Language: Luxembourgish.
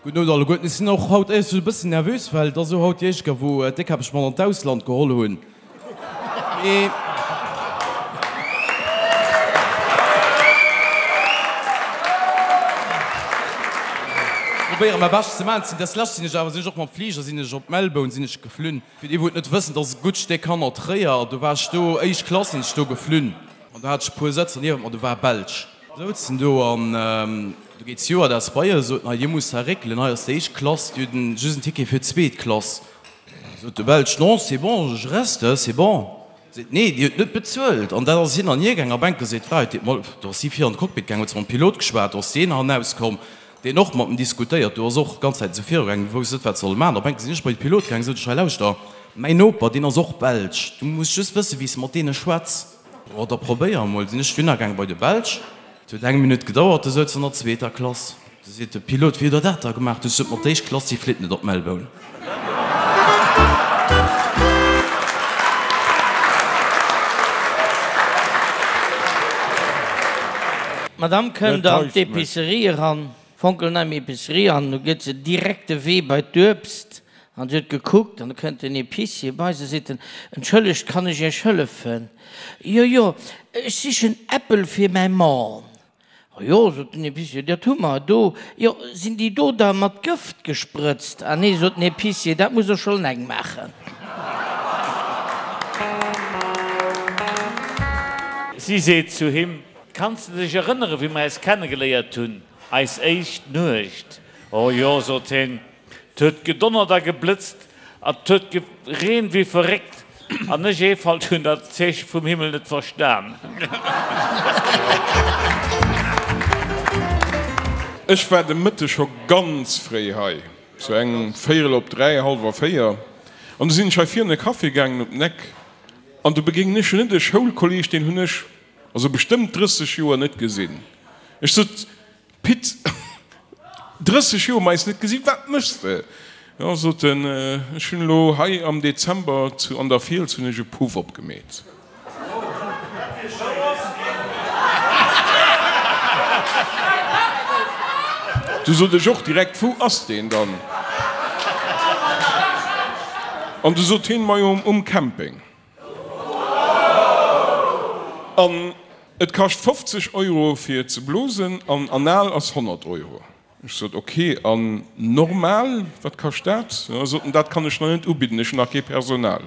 Gudden Owend alleguerten. Ech sinn och haut éierlech gesot e bëssen nervös, well et ass elo haut déi éischt Kéier, wou d'Déckkäpp mech mat an d'Ausland geholl hunn. Mee. Probéiere mäi Bescht ze maachen. Des lescht sinn ech awer, sinn ech och mam Fliger sinn ech op Melbourne sinn ech geflunn. Fir déi wou et net wëssen, et ass e gutt Stéck hannert Tréier. Do war ech do, éischt Klass sinn ech do geflunn an do hat ech e puer Sëtzer niewent mer, do war e Belsch. Souzen do an do geet d'Stewardess bei eis, sot, Hei, dir musst hei réckelen, hei ass déi éischt Klass, dir hutt just en Ticket fir d'zweet Klass. Sot de Belsch, Non, c'est bon, je reste, c'est bon. Seet, Nee, dir hutt net bezuelt. An dat ass hin an hier gaang. A Bänke seet d'Fra, huet mol, do ass si vir an de Cockpit gaang, huet se mam Pilot geschwat, do ass deen hannauskomm, deen och mat em diskutéiert, do ass och d'ganz Zäit esou virugaang, wousst net, wat se solle maachen. A Bänke sinn ech bei de Pilot gaang, sot ech, Hei lauschter, mäin Noper, deen ass och Belsch, du muss just wëssen, wéi s de mat deene schwätz. Oh, da probéier emol. Sinn ech dunner gaang bei de Belsch. Et huet eng Minutt gedauert, du souz an der zweeter Klass. Du seet de Pilot, Wéi hutt der dat da gemaach? Du sot, Ma d'éischt Klass, déi flitt net op Melbourne. D'Madame kënnt an d'Epicerie eran, fonkelnei Epicerie, an du gëtt se direkt de Wee bei d'Uebst An si huet gekuckt, an du kënnt den Epicier bei se, seet en, Entschëllegt, kann ech Iech hëllefen? Jo, jo, ech sichen Äppel fir mäi Mann. O jo, sot den Epicier, dat hu mer do. Jo, sinn déi do da mat Gëft gesprëtzt? Ah nee, sot den Epicier, dat muss der schonn eleng maachen. Si seet zu him, Kanns de dech erënnere wéi mer äis kennegeléiert hunn, eis éischt Nuecht? O jo, sot hien, 't huet gedonnert a geblëtzt a 't huet gereent wéi verréckt, an ech, Eefalt, hunn dat Zeeche vum Himmel net verstan. Ech war de Mëtteg scho ganz fréi hei, sou eng véierel op 3, hallwer 4, an du sinn ech hei virun e Café gaangen op den Eck, an du begéinen ech net e Schoulkolleg, deen hunn ech also bestëmmt 30 Joer net gesinn. Ech sot, Pit, 30 Joer mer eis net gesinn, wat méchs de? Jo, sot en, ech hunn elo hei am Dezember zu an der Fiels hunn ech e Puff opgemeet. Du sot ech och direkt, wou ass deen dann? An du sot hien, majo um Camping. An et kascht 50 Euro fir ze blosen an anal ass 100 Euro. Ech sot, ok, an normal, wat kascht dat? Da sot en, dat kann ech nach net ubidden, ech hunn nach kee Personal.